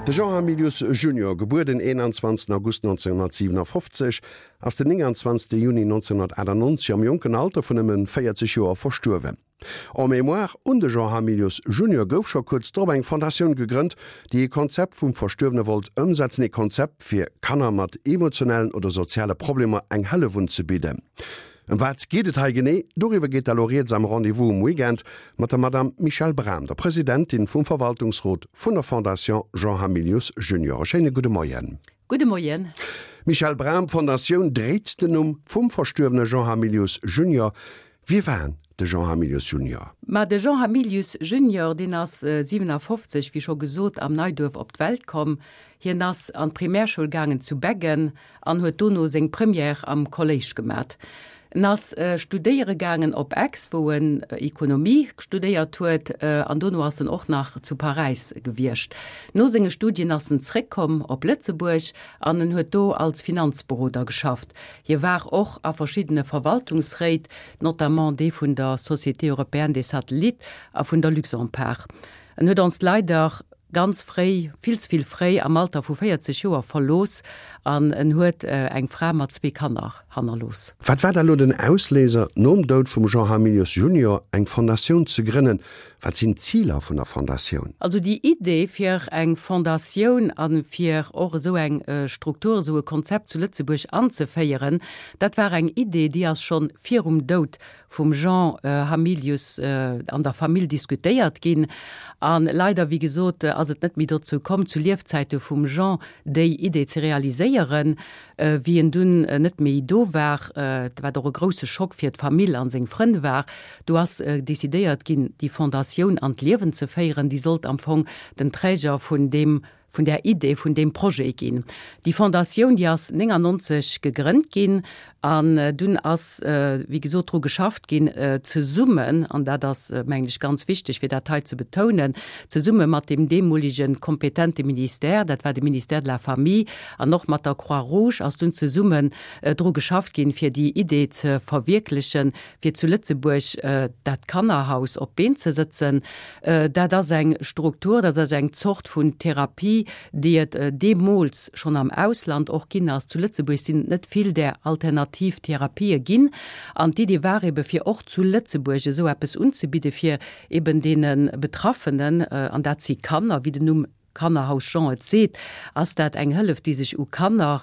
De Jean Hamilius Junior, gebuer den 21 August 1957, ass den 29 Juni 1998 am jonken Alter vun nëmmen 40 Joer verstuerwen. En mémoire un de Jean Hamilius Junior gouf scho kuerz drop eng Fondatioun gegrënnt, déi ee Konzept vum Verstuerwene wollt ëmsetzen, ee Konzept fir Kanner mat emotionellen oder soziale Problemer eng Hëllef unzebidden. Ëm wat geet et hei genee? Doriwwer geet da lo rieds am Rendez-vous um Weekend mat der Madame Michèle Bram, der Presidentin vum Verwaltungsrot vun der Fondation Jean Hamilius Junior. E schéine gudde Moien. Gudde Moien. Michèle Bram, D'Fondatioun dréit den Numm vum verstuerwene Jean Hamilius Junior. Wie war de Jean Hamilius Junior? Ma de Jean Hamilius Junior, deen ass 57, wéi scho gesot, am Neiduerf op d'Welt komm. Hien ass an d'Primärschoul gaangen zu Beggen an huet dono seng Première am Kolléisch gemat. En ass studéiere gaangen op Aix, wou en Ekonomie studéiert huet, an dono ass en och nach zu Paräis gewiescht. No senge Studien ass en zréckkomm op Lëtzebuerg an en huet do als Finanzberoder geschafft. Hie war och a verschiddene Verwaltungsréit, notamment dee vun der Société européenne des satellites a vun der Luxempart. En huet ons leider ganz fréi, vill ze vill fréi, am Alter vu 40 Joer verlooss an en huet eng Fra mat zwee Kanner hannerlooss. Wat war da lo den Ausléiser, nom Doud vum Jean Hamilius Junior eng Fondatioun ze grënnen? Wat sinn d'Ziler vun der Fondatioun? Also déi Idee fir eng Fondatioun a fir och esou eng Struktur, esou e Konzept zu Lëtzebuerg anzeféieren, dat war eng Idee, déi ass schonn virum Doud vum Jean Hamilius an der Famill diskutéiert ginn. A leider, wéi gesot, ass et net méi dozou komm, zu Liefzäite vum Jean déi Idee ze realiséieren. Wéi en dunn net méi do war, wat och e grousse Schock fir d'Famill an seng Frënn war, do ass decidéiert ginn, déi Fondatioun an d'Liewen ze féieren. Déi sollt am Fong den Träger vun deem vun där Idee vun deem Projet ginn. Déi Fondatioun, déi ass 99 gegrënnt ginn an dunn ass, wéi gesot, dru geschafft ginn, zesummen, an dat ass, mengen ech, ganz wichteg, fir dat hei ze betounen, zesumme mat deem deemolige kompetente Ministère, dat war de Ministère de la Famille, an och mat der Croix-Rouge ass dunn zesummen dru geschafft ginn, fir déi Idee ze verwierklechen, fir zu Lëtzebuerg dat Kannerhaus op d'Been ze sëtzen. Dat ass eng Struktur, dat ass eng Zort vun Therapie, déi et deemools schonn am Ausland och ginn ass. Zu Lëtzebuerg sinn et net vill där alternativ Therapië ginn. An d'Idee war ebe fir och zu Lëtzebuerg esou eppes unzebidde fir eben deene Betraffenen, an dat si Kanner, wéi den Numm Kannerhaus Jean et seet, ass dat eng Hëllef, déi sech u Kanner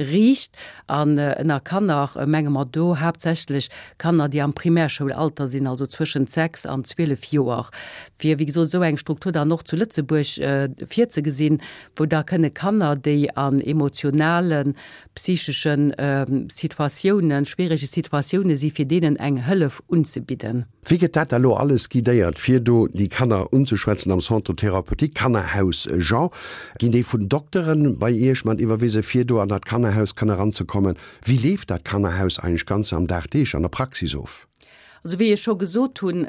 riicht. An ënner Kanner menge mer do haaptsächlech Kanner, déi am Primärschoul-Alter sinn, also zwëschent 6 an 12 Joer. Fir, wéi gesot, esou eng Struktur dann och zu Lëtzebuerg virzegesinn, wou da kënne Kanner, déi an emotionalen, psychesche Situatiounen, schwierege Situatioune si, fir deenen eng Hëllef unzebidden. Wéi gëtt dat da lo alles guidéiert, fir do déi Kanner unzeschwätzen am Centre thérapeutique Kannerhaus Jean? Ginn déi vun Dokteren bei Iech mat iwwerwise fir do an dat Kannerhaus kann eranzekommen? Wéi leeft dat Kannerhaus eigentlech ganz am Dagdeeg an der Praxis of? Also wéi ech scho gesot hunn,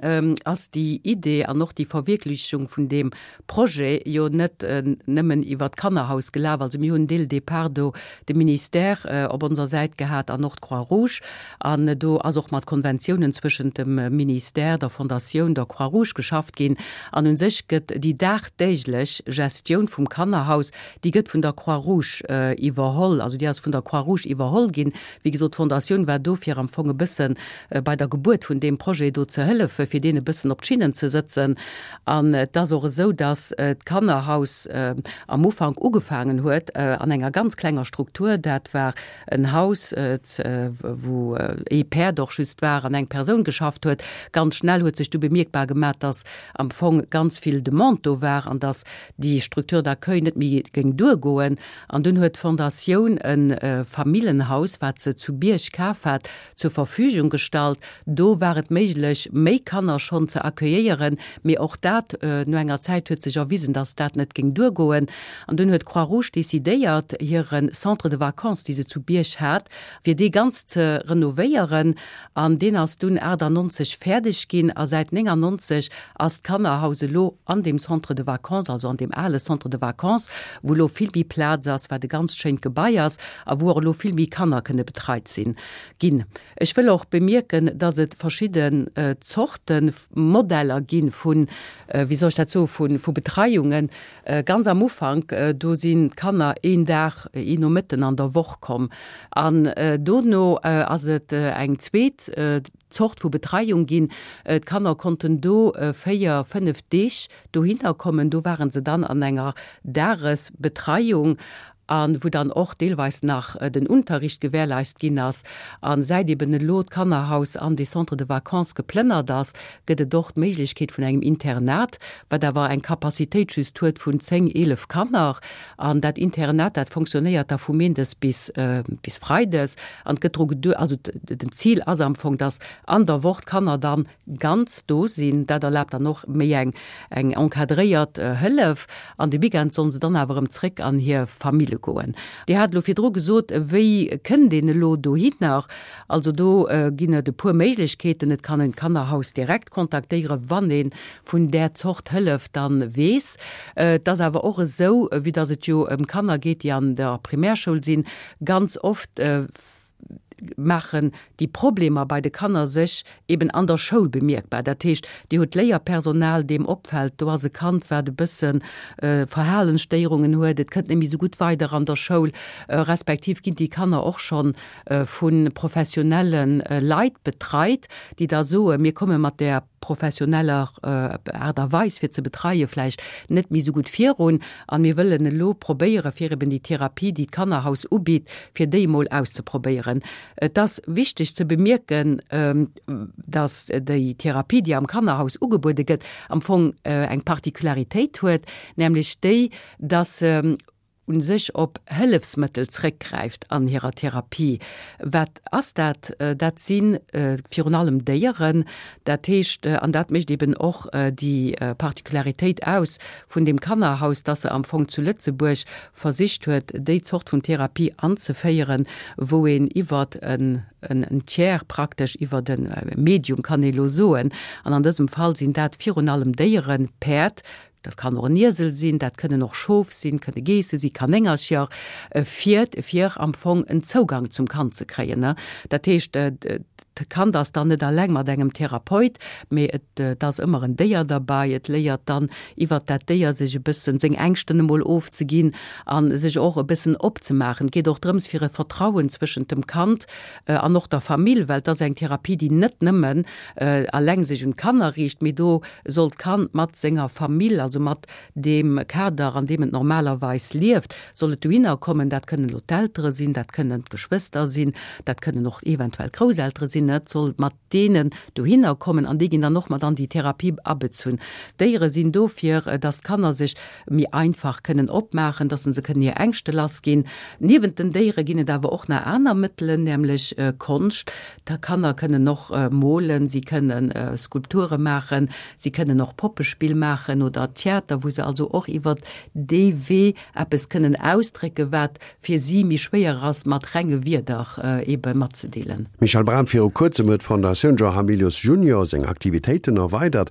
ass déi Idee an och déi Verwierklechung vun deem Projet jo net nëmmen iwwert d'Kannerhaus gelaf. Also mir hunn dès le départ do de Ministère op onser Säit gehat an och d'Croix-Rouge. An do ass och mat Konventiounen zwëschent dem Ministère, der Fondatioun, der Croix-Rouge geschafft ginn. An u sech gëtt déi dagdäglech Gestioun vum Kannerhaus, déi gëtt vun der Croix-Rouge iwwerholl. Also déi ass vun der Croix-Rouge iwwerholl ginn. Wéi gesot, d'Fondatioun war do fir am Fong e bësse bei der Gebuert vun deem Projet do ze hëllefen, fir deen e bëssen op d'Schinnen ze sëtzen. An et ass och esou, datt d'Kannerhaus am Ufank ugefaangen huet an enger ganz klenger Struktur. Dat war en Haus, wou ee Päerd och just war an eng Persoun geschafft huet. Ganz schnell huet sech du bemierkbar gemaach, datt am Fong ganz vill Demande do war an datt déi Structure d'accueil net méi géing duergoen. An dunn huet d'Fondatioun e Famillenhaus, wat se zu Bierg kaf hat, zur Verfügung gestallt. Do war et méiglech, méi Kanner schonn ze accueilléieren, mee och dat, no enger Zäit huet sech erwisen, dass dat net géing duergoen. An dunn huet d'Croix-Rouge decidéiert, hire Centre de vacances, dee se zu Bierg hat, fir dee ganz ze renovéieren. An deen ass dunn 98 fäerdeg ginn a säit 99 ass d'Kannerhaus elo an deem Centre de vacances, also an deem ale Centre de vacances, wou elo vill méi Plaz ass, wat e ganzt schéint Gebai ass a wou och elo vill méi Kanner kënne betreit sinn, ginn. Ech wëll och bemierken, dass et verschidde. verschidden Zorte Modeller gi vun, wéi soll ech dat soen, vu vu Betreiungen. Ganz am Ufank, do sinn d'Kanner een Dag, een Nomëtten an der Woch komm. An dono ass et eng zweet Zort vu Betreiung ginn. D'Kanner konnten do 4, 5 Deeg dohinner kommen. Do ware se dann an enger Dagesbetreiung a wou dann och deelweis nach den Unterricht gewährleist ginn ass. A säit eben elo d'Kannerhaus an dee Centre de vacances geplënnert ass, gëtt et och d'Méiglechkeet vun engem Internat, wat awer eng Capacitéit just huet vun 10, 11 Kanner. An dat Internat, dat fonctionnéiert da vu Méindes bis bis Freides. An et gëtt dru gedu-, also den Zil ass am Fong, dass an der Woch d'Kanner dann ganz do sinn. Dat erlaabt dann och méi eng eng encadréiert Hëllef. An de Weekend sollen se dann awer erëm zréck an hir Famille goen. Dir hat elo virdru gesot, wéi kënnt een elo dohinner? Also do ginn et e puer Méiglechkeeten. Et kann een d'Kannerhaus direkt kontaktéieren, wann ee vun där Zort Hëllef dann weess. Et ass awer och esou, vue dass et jo ëm Kanner geet, déi an der Primärschoul sinn, ganz oft maachen déi Problemer bei de Kanner sech eben an der Schoul bemierkbar. Dat heescht, Dir hutt Léierpersonal, deem opfält, do ass e Kand, wat e bësse Verhalensstéierungen huet, et kënnt net méi esou gutt weider an der Schoul, respektiv ginn déi Kanner och schonn vu professionelle Leit betreit, déi da soen, mir komme mat där professioneller Aart a Weis fir ze betreie vläicht net méi esou gutt virun an mir wëllen elo probéiere fir eben déi Therapie, déi d'Kannerhaus ubitt, fir déi emol auszeprobéieren. Et ass wichteg ze bemierken, dass déi Therapie, déi am Kannerhaus ugebuede gëtt, am Fong eng Particularitéit huet, nämlech déi, dass se u sech op Hëllefsmëttel zréckgräift an hirer Therapie. Wat ass dat? Dat si virun allem Déieren. Dat heescht, an dat mécht eben och déi Particularitéit aus vun deem Kannerhaus, dass se am Fong zu Lëtzebuerg versicht huet, déi Zort vun Therapie anzeféieren, wou een iwwert en Tiers praktesch, iwwert e Medium kann ee lo soen, an an dësem Fall sinn dat virun allem Déieren, Päerd, dat kann och en Iesel sinn, dat kënnen och Schof sinn, kënne Geesse sinn, Kanéngercher, fiert, fir am Fong en Zougang zum Kand ze kréien. Dat heescht, d'Kand ass dann net alleng mat engem Therapeut, mee et ass ëmmer en Déier derbei. Et léiert dann iwwert dat Déier sech e bëssen seng Ängschten emol ofzeginn a sech och e bëssen opzemaachen. Et geet och drëms, fir e Vertrauen zwëschent dem Kand an och der Famill, well et ass eng Therapie, déi net nëmmen alleng sech un d'Kanner riicht, mee do soll d'Kand mat senger Famill, also mat deem Kader, an deem et normalerweis lieft, soll et dohinner kommen. Dat kënnen elo d'Eltere sinn, dat kënnen d'Geschwëster sinn, dat kënnen och eventuell d'Grousseltere sinn. Et soll mat deenen dohinner kommen an déi ginn dann och mat an déi Therapie abezunn. D'Déiere sinn do, fir dass d'Kanner sech méi einfach kënnen opmaachen, dass se kënnen hir Ängschte lassginn. Niewent den Déiere ginn et awer och nach aner Mëttelen, nämlech Konscht. D'Kanner kënnen och molen, si kënne Skulpture maachen, si kënnen och Poppespill maachen oder Theater, wou se also och iwwert dee Wee eppes kënnen ausdrécken, wat fir si méi schwéier ass mat renge Wierder ebe matzedeelen. Michèle Bram, Viru kuerzem huet d'Fondatioun Jean Hamilius Junior seng Aktivitéiten erweidert.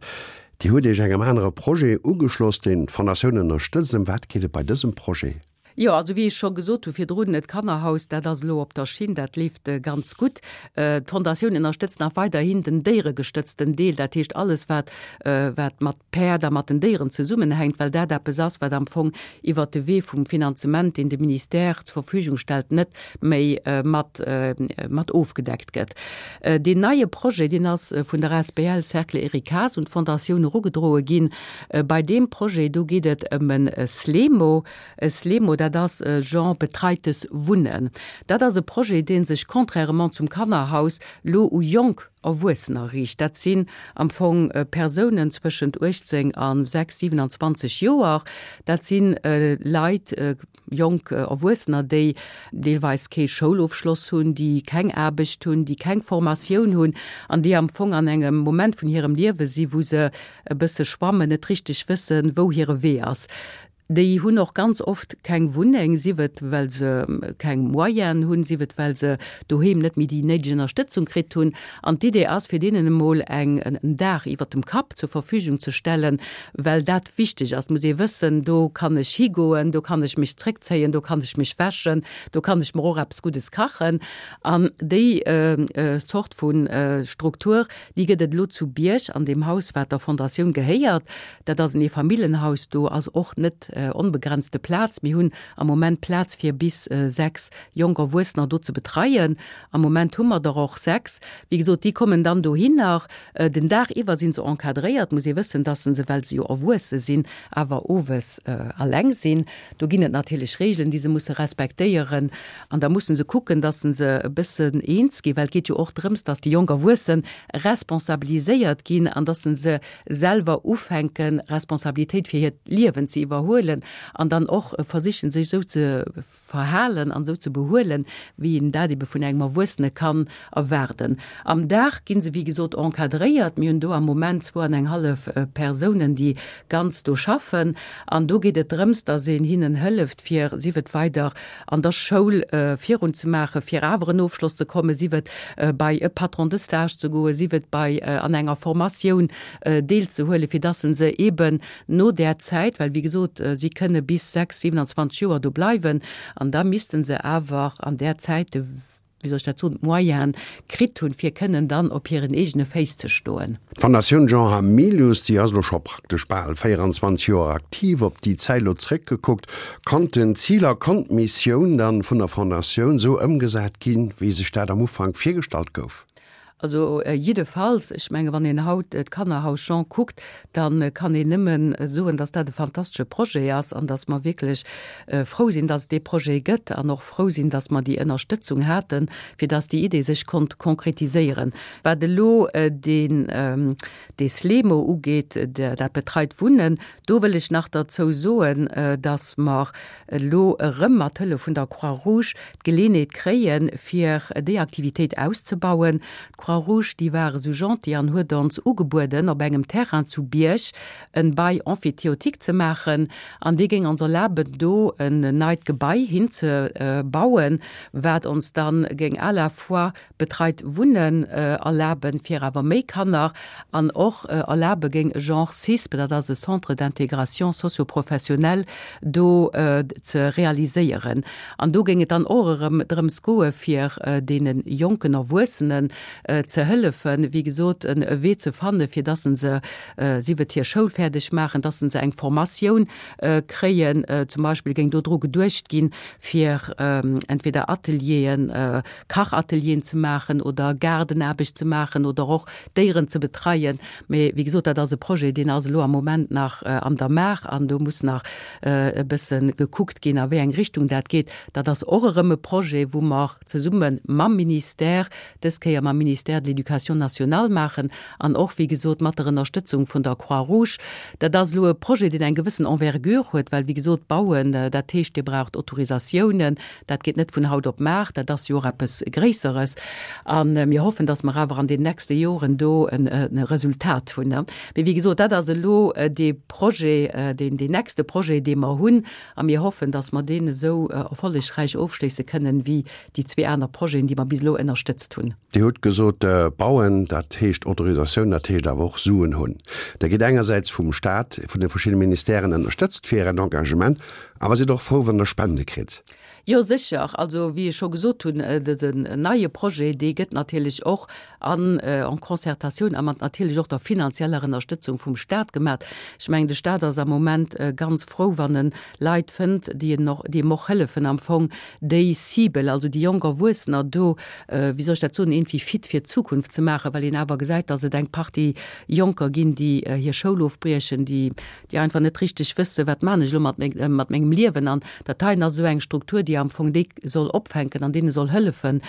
Dir hutt Iech engem anere Projet ugeschloss, deen d'Fondatioun ënnerstëtzt. Ëm wat geet et bei dësem Projet? Jo, also wéi ech scho gesot hu virdrun, d'Kannerhaus, dat ass elo op der Schinn, dat leeft ganz gutt. D'Fondatioun ënnerstëtzt nach weiderhin den déieregestëtzten Deel, dat heescht alles, wat, wat mat Päerd a mat den Déieren zesummenhänkt, well dat eppes ass, wat am Fong iwwert de Wee vum Finanzement, deen de Ministère zur Verfügung stellt, net méi mat, mat ofgedeckt gëtt. Deen neie Projet, deen ass vun der asbl Cercle Eric Haas un d'Fondatioun erugedroe ginn. Bei deem Projet, do geet et ëm e SLEMO. E SLEMO, dat ass e Genre betreites Wunnen. Dat ass e Projet, dee sech contrairement zum Kannerhaus lo u jonk Erwuessener riicht. Dat sinn am Fong Persounen zwëschent 18 a 6, 27 Joer. Dat si Leit, jonk Erwuessener, déi deelweis kee Schoulofschloss hunn, déi keng Aarbecht hunn, déi keng Formatioun hunn an déi am Fong an engem Moment vun hirem Liewe si wou se e bësse schwammen, net richteg wëssen, wou hire Wee ass. Déi hunn och ganz oft keng Wunneng, sief et well se keng Moyenen hunn, sief et well se doheem net méi déi néideg Ënnerstëtzung kritt hunn. An d'Idee ass, fir deenen emol eng en Daach iwwert dem Kapp zur Verfügung ze stellen, well dat wichteg ass. Et muss ee wëssen, do kann ech higoen, do kann ech mech zréckzéien, do kann ech mech wäschen, do kann ech mer och eppes Guddes kachen. An déi Zort vu Struktur, déi gëtt et elo zu Bierg an deem Haus, wat der Fondatioun gehéiert. Dat ass en Eefamilljenhaus, do ass och net onbegrenzte Plaz. Mir hunn am Moment Plaz fir bis 6 jonk Erwuessener do ze betreien. Am Moment hu mer der och 6. Wéi gesot, déi kommen dann dohinner. Den Dag iwwer si se encadréiert, muss ee wëssen, dass se, well se jo erwuesse sinn, awer owes alleng sinn. Do ginn et natierlech Regeln, déi se musse respektéieren. An da musse se kucken, dass se e bëssen eens ginn, well et geet jo och drëms, dass déi jonk Erwuesse responsabiliséiert ginn an dass se selwer ufänken, Responsabilitéit fir hiert Liewen ze iwwerhuelen an dann och versichen, sech esou ze verhalen an esou ze behuelen, wéi een dat ebe vun engem Erwuessene kann erwaarden. Am Dag gi se, wéi gesot, encadréiert. Mir hunn do am Moment zwou an eng hallef Persounen, déi ganz do schaffen. An do geet et drëms, dass een hinnen hëlleft, fir, sief et weider an der Schoul virunzemaachen, fir awer en Ofschloss ze kommen, sief et bei e Patron de stage ze goen, sief et bei an enger Formatioun deelzehuelen, fir dass se eeben no där Zäit, well wéi gesot, si kënne bis 6, 27 Joer do bleiwen, an da misste se awer an där Zäit de, wéi soll ech dat soen, d'Moyene kritt hunn, fir kënnen dann op hiren eegene Féiss ze stoen. D'Fondatioun Jean Hamilius, déi ass elo scho praktesch bal 24 Joer aktiv. Op déi Zäit elo zréckgekuckt, konnten d'Ziler, konnt d'Missioun dann vun der Fondatioun esou ëmgesat ginn, wéi sech dat am Ufank virgestallt gouf? Also jiddefalls, ech menge wann een haut d'Kannerhaus Jean kuckt, da kann een nëmme soen, datt dat e fantastesche Projet ass an datt mer wierklech frou sinn, datt et dee Projet gëtt an och frou sinn, datt mer déi Ënnerstëtzung haten, fir datt déi Idee sech konnt konkretiséieren. Wat elo deen, dee SLEMO ugeet, dat betreit Wunnen, do wëll ech nach derzou soen, datt mer elo erëm mat Hëllef vun der Croix-Rouge d'Geleenheet kréien, fir déi Aktivitéit auszebauen. D'Croix-Rouge, déi war esou gentil an huet ons ugebueden, op engem Terrain zu Bierg en Bail emphytéotique ze maachen an dee géing ons erlaben, do en neit Gebai hinzebauen, wat ons dann géing à la fois betreit Wunnen erlaben, fir awer méi Kanner, an och erlabe géing e Genre CISP, dat ass e Centre d'intégration socio-professionnelle, do ze realiséieren. An do géing et dann och erëm drëms goe fir deene jonken Erwuessenen ze hëllefen, wéi gesot, e Wee ze fanne fir dass se, sief et hir Schoul fäerdeg maachen, dass se eng Formatioun kréien. Zum Beispill géing do dru geduecht ginn, fir entweder Atelieren, Kachatelieren ze maachen oder Gaardenaarbecht ze maachen oder och Déieren ze betreien. Mee wéi gesot, dat ass e Projet, deen ass elo am Moment nach an der Maach an do muss nach e bësse gekuckt ginn, a wéi eng Richtung dat geet. Dat ass och erëm e Projet, wou mer zesumme mam Ministère, dës Kéier mam Ministère de l'Éducation nationale maachen an och, wéi gesot, mat der Ënnerstëtzung vun der Croix-Rouge. Dat ass elo e Projet, deen eng gewëssen Envergure huet, well, wéi gesot, bauen, dat heescht, Dir braucht Autorisatiounen, Dat geet net vun haut op mar, dat ass jo och eppes Gréisseres. A mir hoffen, datt mer awer an den nächste Joren do e Resultat hunn. Mee wéi gesot, dat ass elo dee Projet, deen deen nächste Projet, dee mer hunn. A mir hoffen, datt mer deen esou erfollegräich ofschléisse kënnen, wéi déi zwee aner Projeten, déi mer bis elo ënnerstëtzt hunn. Dir hutt gesot, bauen, dat heescht Autorisatioun, dat heescht awer och Suen hunn. Der gitt engersäits vum Stat, vun de verschiddene Ministèren ënnerstëtzt fir Ären Engagement, Awer sidd och frou, wann der Spende kritt. Jo, sécher. Also, wéi ech scho gesot hunn, dësen neie Projet, dee gëtt natierlech och an en concertatioun a mat natierlech och der finanzieller Ënnerstëtzung vum Stat gemaach. Ech mengen, de Stat ass am Moment ganz frou, wann en Leit fënnt, déi en och, déi em och hëllefen am Fong, déi Cible, also déi jonk Erwuessener do, wéi soll ech dat soen, iergendwéi fit fir d'Zukunft ze maachen, well een awer gesäit, dass et eng Partie Jonker ginn, déi hir Schoul ofbriechen, déi déi einfach net richteg wëssen, wat maan ech elo mat mat mengem. engem Liewen. An dat heien ass esou eng Struktur, déi am Fong déi soll opfänken an deene soll hëllefen,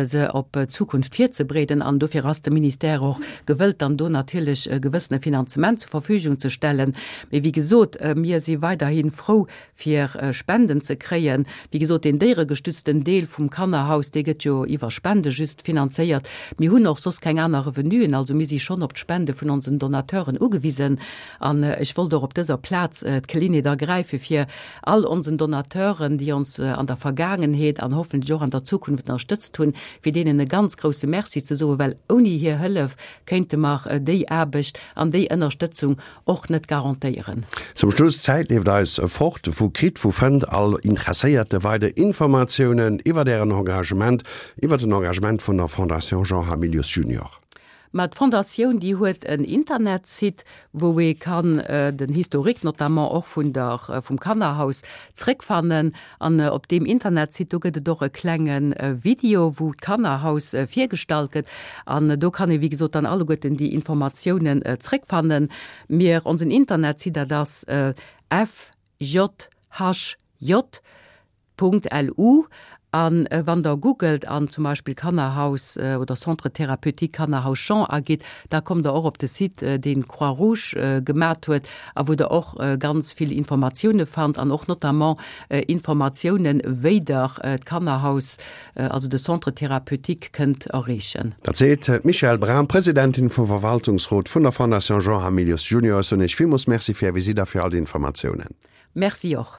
se op d'Zukunft virzebereeden. An dofir ass de Ministère och gewëllt, dann do natierlech e gewëssene Finanzement zur Verfügung ze stellen. Mee wéi gesot, mir si weiderhi frou, fir Spenden ze kréien. Wéi gesot, deen déieregestützten Deel vum Kannerhaus, dee gëtt jo iwwer Spende just finanzéiert. Mir hunn och soss keng aner Revenuen, also mir si schonn op d'Spende vun onsen Donateuren ugewisen. An ech wollt och op dëser Plaz d'Geleeënheet ergräifen, fir all onsen Donateuren, déi ons an der Vergaangenheet an hoffentlech och an der Zukunft ënnerstëtzt hunn, fir deenen e ganz grouse Merci ze soen, well ouni hir Hëllef kéinte mer déi Aarbecht an déi Ënnerstëtzung och net garantéieren. Zum Schluss, D'Zäit leeft eis fort. Wou kritt, wou fënnt all Interesséierte weider Informatiounen iwwert Ären Engagement, iwwert den Engagement vun der Fondation Jean Hamilius Junior? Ma d'Fondatioun, déi huet en Internetsite, wou ee kann den Historique notamment och vun der, vum Kannerhaus zréckfannen. An op deem Internetsite, do gëtt et och e klenge Video, wou d'Kannerhaus virgestallt gëtt. An do kann ee wéi gesot dann alleguerten déi Informatiounen zréckfannen. Mir, onsen Internetsite, dat ass fjhj. Punkt lu an wann der googelt an zum Beispill Kannerhaus oder Centre thérapeutique Kannerhaus Jean agitt, da kommt der och op de Site deen d'Croix Rouge gemat huet a wou der och ganz vill Informatioune fannt an och notamment Informatiounen wéi der d'Kannerhaus, also de Centre thérapeutique kënnt erreechen. Dat seet d'Michèle Bram, Presidentin vum Verwaltungsrot vun der Fondation Jean Hamilius Junior. Ech soen Iech villmools Merci fir Är Visitt a fir all déi Informatiounen. Merci och.